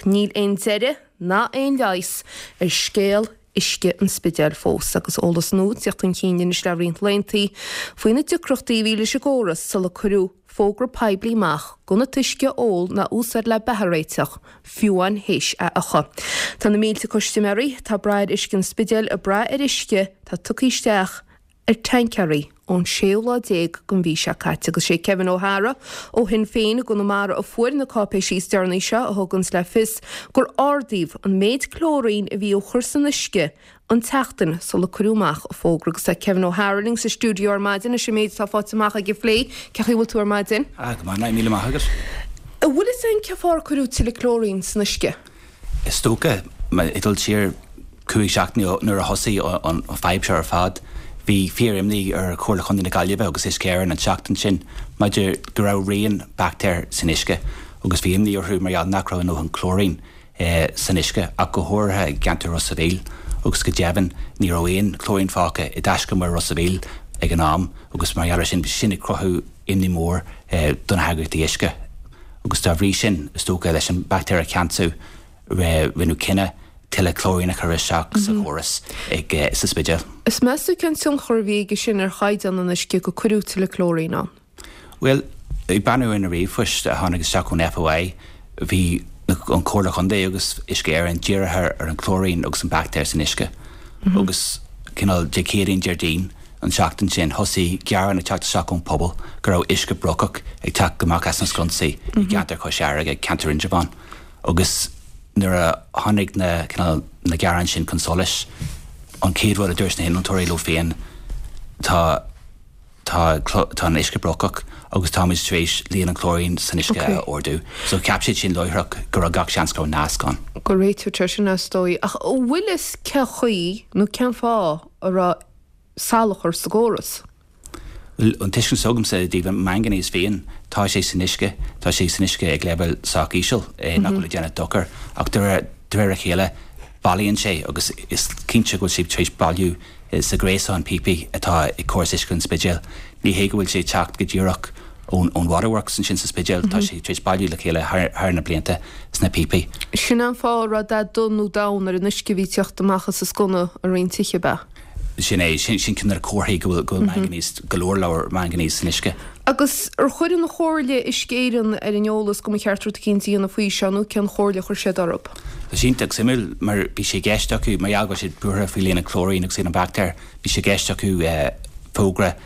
Ach níl aon deireadh ná aon leigheas ar scéal uisce an Spidéil fós, agus eolas nua ag teacht chun cinn anois le roinnt laethanta faoi na deacrachtaí a bhí leis an gcóras sula cuireadh fógra poiblí amach gan an t-uisce a ól ná a úsáid le beatha a réiteach, fiú amháin théis é a fhiuchadh. Tá na mílte custaiméirí atá ag brath ar uisce an Spidéil ag brath ar uisce atá tugtha isteach ar tancaeirí ón séú lá déag den mhí seo caite agus sé Kevin O'Hara ó Shinn Féin i gConamara a fuair na cáipéisí is deireanaí seo a thuganns le fios gur ardaíodh an méid clóirín a bhí á chur san uisce an tseachtain sula cuireadh amach an fógra agus tá Kevin O'Hara linn sa stiúideo ar maidin leis an méid atá faighte amach aige a phlé. Cén chaoi a bhfuil tú ar maidin? Ah, go maith, míle maith agat. An bhfuil fhios a'inn cén fáth ar cuireadh tuilleadh clóirín san uisce? Is dócha, ag dul siar 5 seachtaine ó nuair a thosaigh an fadhb seo ar fad, bhí fíor-imní ar Chomhairle Chontae na Gaillimhe agus Uisce Éireann an tseachtain sin maidir go raibh rian baictéir san uisce agus bhí imní orthu mar gheall nach raibh a ndóthain clóirín san uisce, ach go háirithe i gceantar Ros a' Mhíl, agus go deimhin ní raibh aon chlóirín fágtha i dtaiscumar Ros a' Mhíl ag an am agus mar gheall ar sin, bhí sin ag cruthú imní mór do na heagraíochtaí uisce agus dá bhrí sin, is dócha, leis an baictéar a cheansú, rinneadh cinneadh tuilleadh clóirín a chur isteach sa chóras ag sa Spidéal. Is meas tú cén tionchar a bhí aige sin ar chaighdeán an uisce go cuireadh tuilleadh clóirín ann? Bhuel, ag breathnú ar na ríomhphoist a tháinig isteach ón FOI, bhí an Chomhairle Chontae agus Uisce Éireann dírithe ar an chlóirín agus an baictéar san uisce. Agus cineál Dé Céadaoin, Déardaoin an tseachtain sin, thosaigh gearáin ag teacht isteach ón pobal go raibh uisce brocach ag teacht amach as na sconsaí i gceantar Chois Fharraige, ceantar Indreabhán. Agus nuair a tháinig na, cineál, na gearáin sin chun solais, an chéad rud a dúirt na hinnealtóirí leo féin, tá, Tá tá an uisce brocach agus táimid tar éis líon an chlóirín san uisce a ardú. So cheap siad sin láithreach go raibh gach seans go raibh nasc ann. Go réiteodh sé sin is dóigh. Ach an bhfuil fhios cén chaoi nó cén fáth a raibh salachar sa gcóras? Bhuel, an tuiscint s'agamsa i dtaobh an manganese féin, tá sé san uisce, tá sé san uisce ag leibhéal sách íseal nach bhfuil ag déanamh dochar ach de réir de réir a chéile bailíonn sé agus is cinnte go bhfuil sé tar éis bailiú sa ghréasán píopaí atá ag córas uisce an Spidéil. Ní hé go bhfuil sé ag teacht go díreach ón Waterworks ansin sa Spidéal, tá sé tar éis bailiú le chéile thar na blianta sna píopaí. Sin an fáth a raibh dath donn nó donn ar an uisce a bhí ag teacht amach as an sconna i roinnt tithe, ab ea? Sin é, sin ceann de na comharthaí go bhfuil manganese, go leor leor manganese san uisce. Agus ar chuir an Chomhairle Uisce Éireann ar an eolas go mba cheart rud eicínt a dhéanamh faoi seo nó cén chomhairle a chuir siad orthu? Tá sé iontach suimiúil mar bhí sé i gceist acu, mar gheall go raibh siad buartha faoi líon an chlóirín agus líon an bhaictéir, bhí sé i gceist acu fógra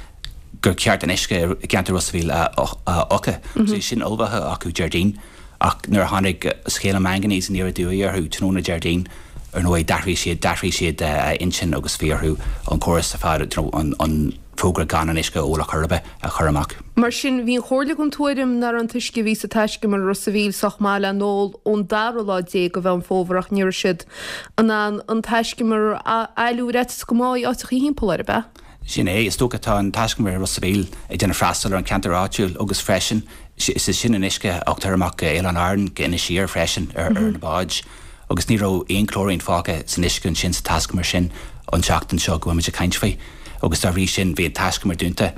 gur ceart an uisce i gceantar Ros a' Mhíl a fhiuchadh. So bhí sin ullmhaithe acu Déardaoin ach nuair a tháinig scéal an manganese aniar aduaidh orthu tráthnóna Déardaoin, ar ndóigh d'athraigh siad, d'athraigh siad a intinn agus bhí orthu an córas ar fad, you know, an, an, fógra gan an uisce a ól ar chor ar bith a chur amach. Mar sin, bhí an Chomhairle den tuairim nach raibh an t-uisce a bhí sa taiscumar i Ros a' Mhíl sách maith le n-ól ón dara lá déag de Mheán Fómhair ach ní raibh siad in ann an taiscumar a fhailiú ar fhaitíos go mbáfaí áiteachaí thimpeall air, ab ea? Sin é. Is dócha tá an taiscumar i Ros a' Mhíl ag déanamh freastal ar an cheantar áitiúil agus freisin is é sin an uisce a thugtar amach go Oileáin Árann, go Inis Oírr freisin ar na báid. Agus ní raibh aon chlóirín fágtha san uisce ansin sa taiscumar sin an tseachtain seo go bhfuil muid ag caint faoi. Agus dá bhrí sin bhí an taiscumar dúnta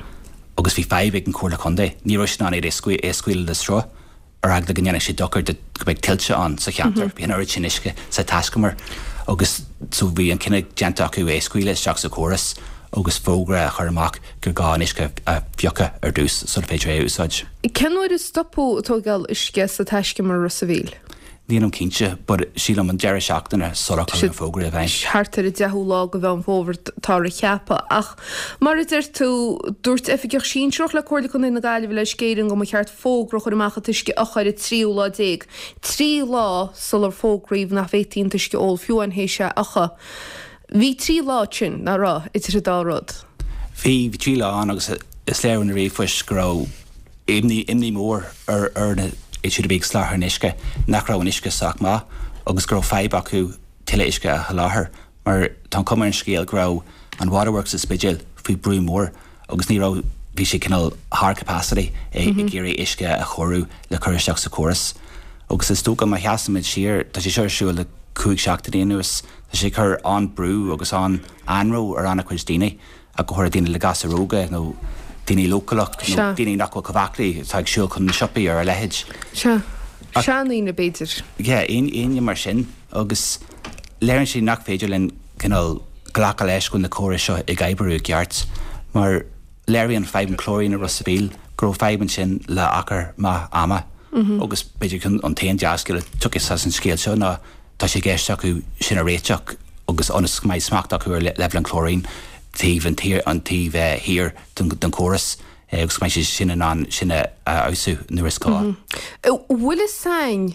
agus bhí fadhb ag an Chomhairle Contae. Ní raibh siad in ann é a scaoileadh le sruth ar eagla go ndéanfadh sé dochar do go mbeadh tuilte ann sa cheantar. Bhí an oiread sin uisce sa taiscumar agus so bhí an cinneadh déanta acu é a scaoileadh isteach sa chóras agus fógra a chur amach gur gá an uisce a fhiuchadh ar dtús sula féidir é a úsáid. Cén uair a stopadh ag tógáil uisce sa taiscumar i Ros a' Mhíl? Nílim cinnte, but sílim an deireadh seachtaine sular cuireadh an fógra i bhfeidhm. Thart ar an deichiú lá de Mheán Fómhair táthar a cheapadh. Ach mar a deir tú, dúirt oifigeach sinsearach le Comhairle Contae na Gaillimhe le Uisce Éireann go mba cheart fógra a chur amach an t-uisce a fhiuchadh ar an tríú lá déag, trí lá sular fógraíodh nach bhféadfaí an t-uisce a ól, fiú amháin théis é a fhiuchadh. Bhí trí lá ansin, nach raibh, idir an dá rud? Bhí, bhí trí lá ann agus is léir ó na ríomhphoist go raibh imní, imní mór ar, ar na, iad siúd a bhí ag soláthar an uisce nach raibh an uisce sách maith agus go raibh fadhb acu tuilleadh uisce a sholáthar mar tá an chuma ar an scéal go raibh an Waterworks sa Spidéal faoi brú mór agus ní raibh, bhí sé cineál thar capacity ag iarraidh uisce a chóiriú le cur isteach sa chóras. Agus is dócha má sheasaimid siar, tá sé seo ar siúl le 5 seachtainí anuas, tá sé ag cur an-brú agus an-anró ar an-chuid daoine, ach go háirithe daoine le gasúir óga nó daoine leochaileach nó daoine nach bhfuil chomh aclaí atá ag siúl chun na siopaí ar a leithéid. Sea. Seandaoine, b'fhéidir. Yeah, éinne mar sin. Agus léiríonn sé nach féidir linn cineál glacadh leis go bhfuil na córais seo ag oibriú i gceart, mar léiríonn fadhb an chlóirín i Ros a' Mhíl go raibh fadhb ansin le achar maith ama. Agus b'fhéidir an t-aon dea-scéal a thiocfas as an scéal seo ná tá sé i gceist acu sin a réiteach agus ionas go mbeidh smacht acu ar leibhéal an chlóirín taobh an taobh thiar den chóras agus go mbeidh siad sin in ann sin a fheabhsú nuair is gá. An bhfuil fhios a'inn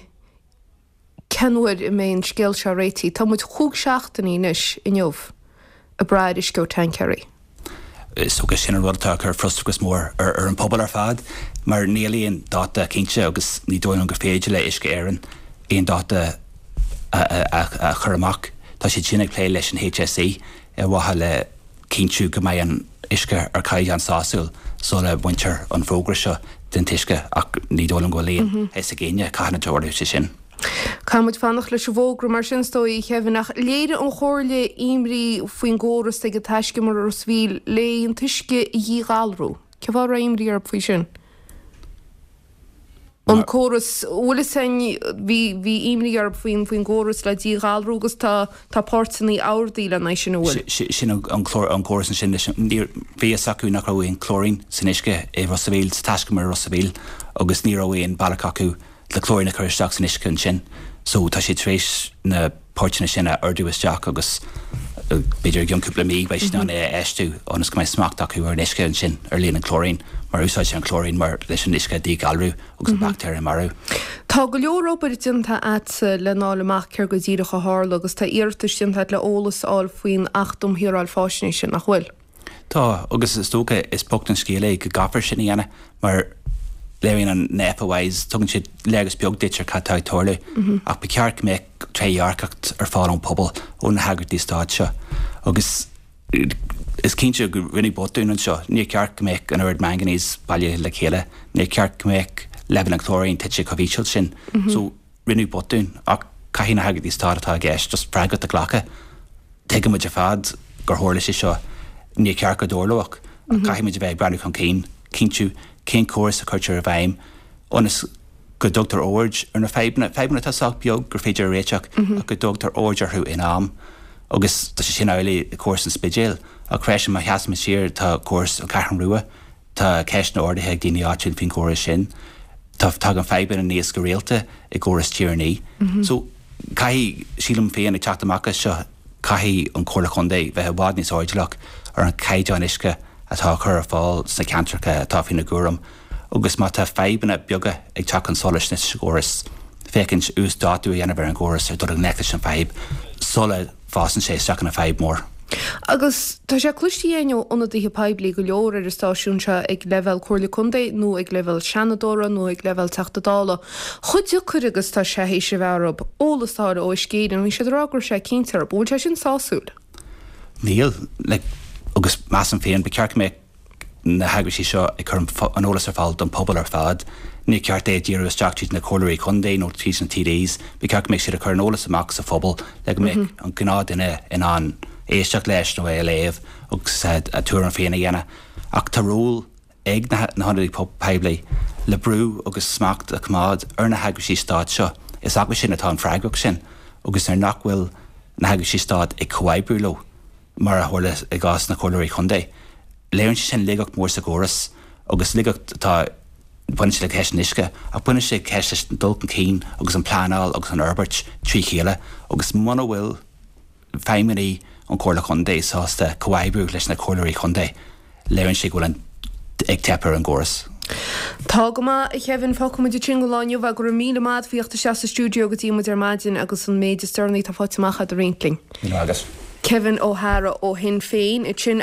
cén uair a mbeidh an scéal seo réitithe? Tá muid chúig seachtainí anois inniu ag brath ar uisce ó tancaeirí. Is dócha sin an rud atá ag cur frustrachas mór ar an pobal ar fad mar níl aon dáta cinnte agus ní dóigh liom gur féidir le Uisce Éireann aon dáta a chur amach. Tá siad sin ag plé leis an HSE ar mhaithe le cinntiú go mbeidh an uisce ar chaighdeán sásúil sula mbaintear an fógra seo den t-uisce ach ní dóigh liom go bhfuil aon fhios ag éinne cathain a dtarlóidh sé sin. Caithfidh muid fanacht leis an bhfógra mar sin is dóigh, a Kevin, ach léirigh an Chomhairle imní faoin gcóras ag an taiscumar i Ros a' Mhíl le an t-uisce a dhíghalrú. Cén fáth a raibh imní orthu faoi sin? An córas, bhfuil fhios a'inn, bhí, bhí imní orthu faoin, faoin gcóras le díghalrú agus tá, tá páirteanna ardaithe lena aghaidh sin, an bhfuil? Sin an clár, an córas ansin leis an, níor, bhí fhios acu nach raibh aon chlóirín san uisce i Ros a' Mhíl, sa taiscumar i Ros a' Mhíl agus ní raibh aon bealach acu le clóirín a chur isteach san uisce ansin. So tá siad tar éis na páirteanna sin a ordú isteach agus b'fhéidir i gcionn cúpla mí beidh siad in ann é a fheistiú ionas go mbeidh smacht acu ar an uisce ansin ar líon an chlóirín mar úsáidtear an clóirín mar leis an uisce a dhíghalrú agus an baictéir a mharú. Tá go leor obair déanta a'dsa lena fháil amach céard go díreach a tharla agus tá iarratais déanta a'd le eolas a fháil faoin Acht um Shaoráil Faisnéise, nach bhfuil? Tá, agus is dócha, is bocht an scéal é go gcaithfear sin a dhéanamh mar léiríonn an na FOIs, tugann siad léargas beag duit ar cad tá ag tarlú ach ba cheart go mbeadh trédhearcacht ar fáil ón pobal, ó na heagraíochtaí stáit seo agus is cinnte go rinneadh botún anseo. Níor cheart go mbeadh an oiread manganese bailithe le chéile, níor cheart go mbeadh leibhéal an chlóirín tite chomh híseal sin. So rinneadh botún ach caithfidh na heagraíochtaí stáit atá i gceist just freagracht a ghlacadh. Tuigeann muid ar fad gur tharla sé seo, níor cheart go dtarlódh ach caithfidh muid a bheith ag breathnú chun cinn, cinntiú cén córas a chuirtear i bhfeidhm ionas go dtugtar aird ar na fadhbanna, fadhbanna atá sách beag gur féidir a réiteach ach go dtugtar aird orthu in am. Agus tá sé sin amhlaidh i gcóras an Spidéil ach freisin má sheasaimid siar tá córas an Cheathrú Rua, Tá ceisteanna ardaithe ag daoine áitiúil faoin gcóras sin. Tá tagann fadhbanna aníos go rialta i gcóras Tír an Fhia. So, caithfidh, sílim féin, ag teacht amach as seo, caithfidh an Chomhairle Chontae bheith i bhfad níos airdeallach ar an chaighdeán uisce atá á chur ar fáil sna ceantracha atá faoina gcúram agus má tá fadhbanna beaga ag teacht chun solais sa gcóras, féachaint uasdátú a dhéanamh ar an gcóras ar dul i ngleic leis an bhfadhb sula bhfásann sé isteach ina fadhb mhór. Agus tá sé cloiste againn ó ionadaithe poiblí go leor ar an stáisiún seo ag leibhéal Comhairle Contae nó ag leibhéal Seanadóra nó ag leibhéal Teachta Dála chomh deacair agus tá sé théis a bheith orthu eolas a fháil ó Uisce Éireann. Bhí siad ag rá go raibh sé cinnte orthu. An bhfuil sé sin sásúil? Níl. Like, agus measaim féin, ba cheart go mbeadh na heagraíochtaí seo ag cur an eolas ar fáil don phobal ar fad. Níor cheart é a dhíriú isteach tríd na comhairleoirí contae nó tríd na TDs. Ba cheart go mbeadh siad ag cur an eolas amach sa phobal le go mbeadh an gnáthduine in ann éisteacht leis nó é a léamh agus a tuairim féin a dhéanamh. Ach tá ról ag na hionadaithe poiblí le brú agus smacht a choimeád ar na heagraíochtaí stáit seo. Is acu sin atá an freagracht sin agus nuair nach bhfuil na heagraíochtaí stáit ag comhoibriú leo, mar a tharla i gcás na comhairleoirí contae. Léiríonn sé sin laigeacht mhór sa gcóras agus laigeacht atá, baineann sé le ceist an uisce ach baineann sé ceist leis an dul chun cinn agus an pleanáil agus an fhorbairt trí chéile agus muna bhfuil feidhmeannaigh an Chomhairle Chontae sásta comhoibriú leis na comhairleoirí contae, léiríonn sé go bhfuil an ag teip ar an gcóras. Tá go maith, a Kevin. Fágfaidh muid ansin don lá inniu é. Go raibh míle maith agat faoi theacht isteach sa stiúideo go dtí muid ar maidin agus an méid is deireanaí atá faighte amach agat a roinnt linn. Míle maith agat. Kevin O'Hara ó Shinn Féin ansin.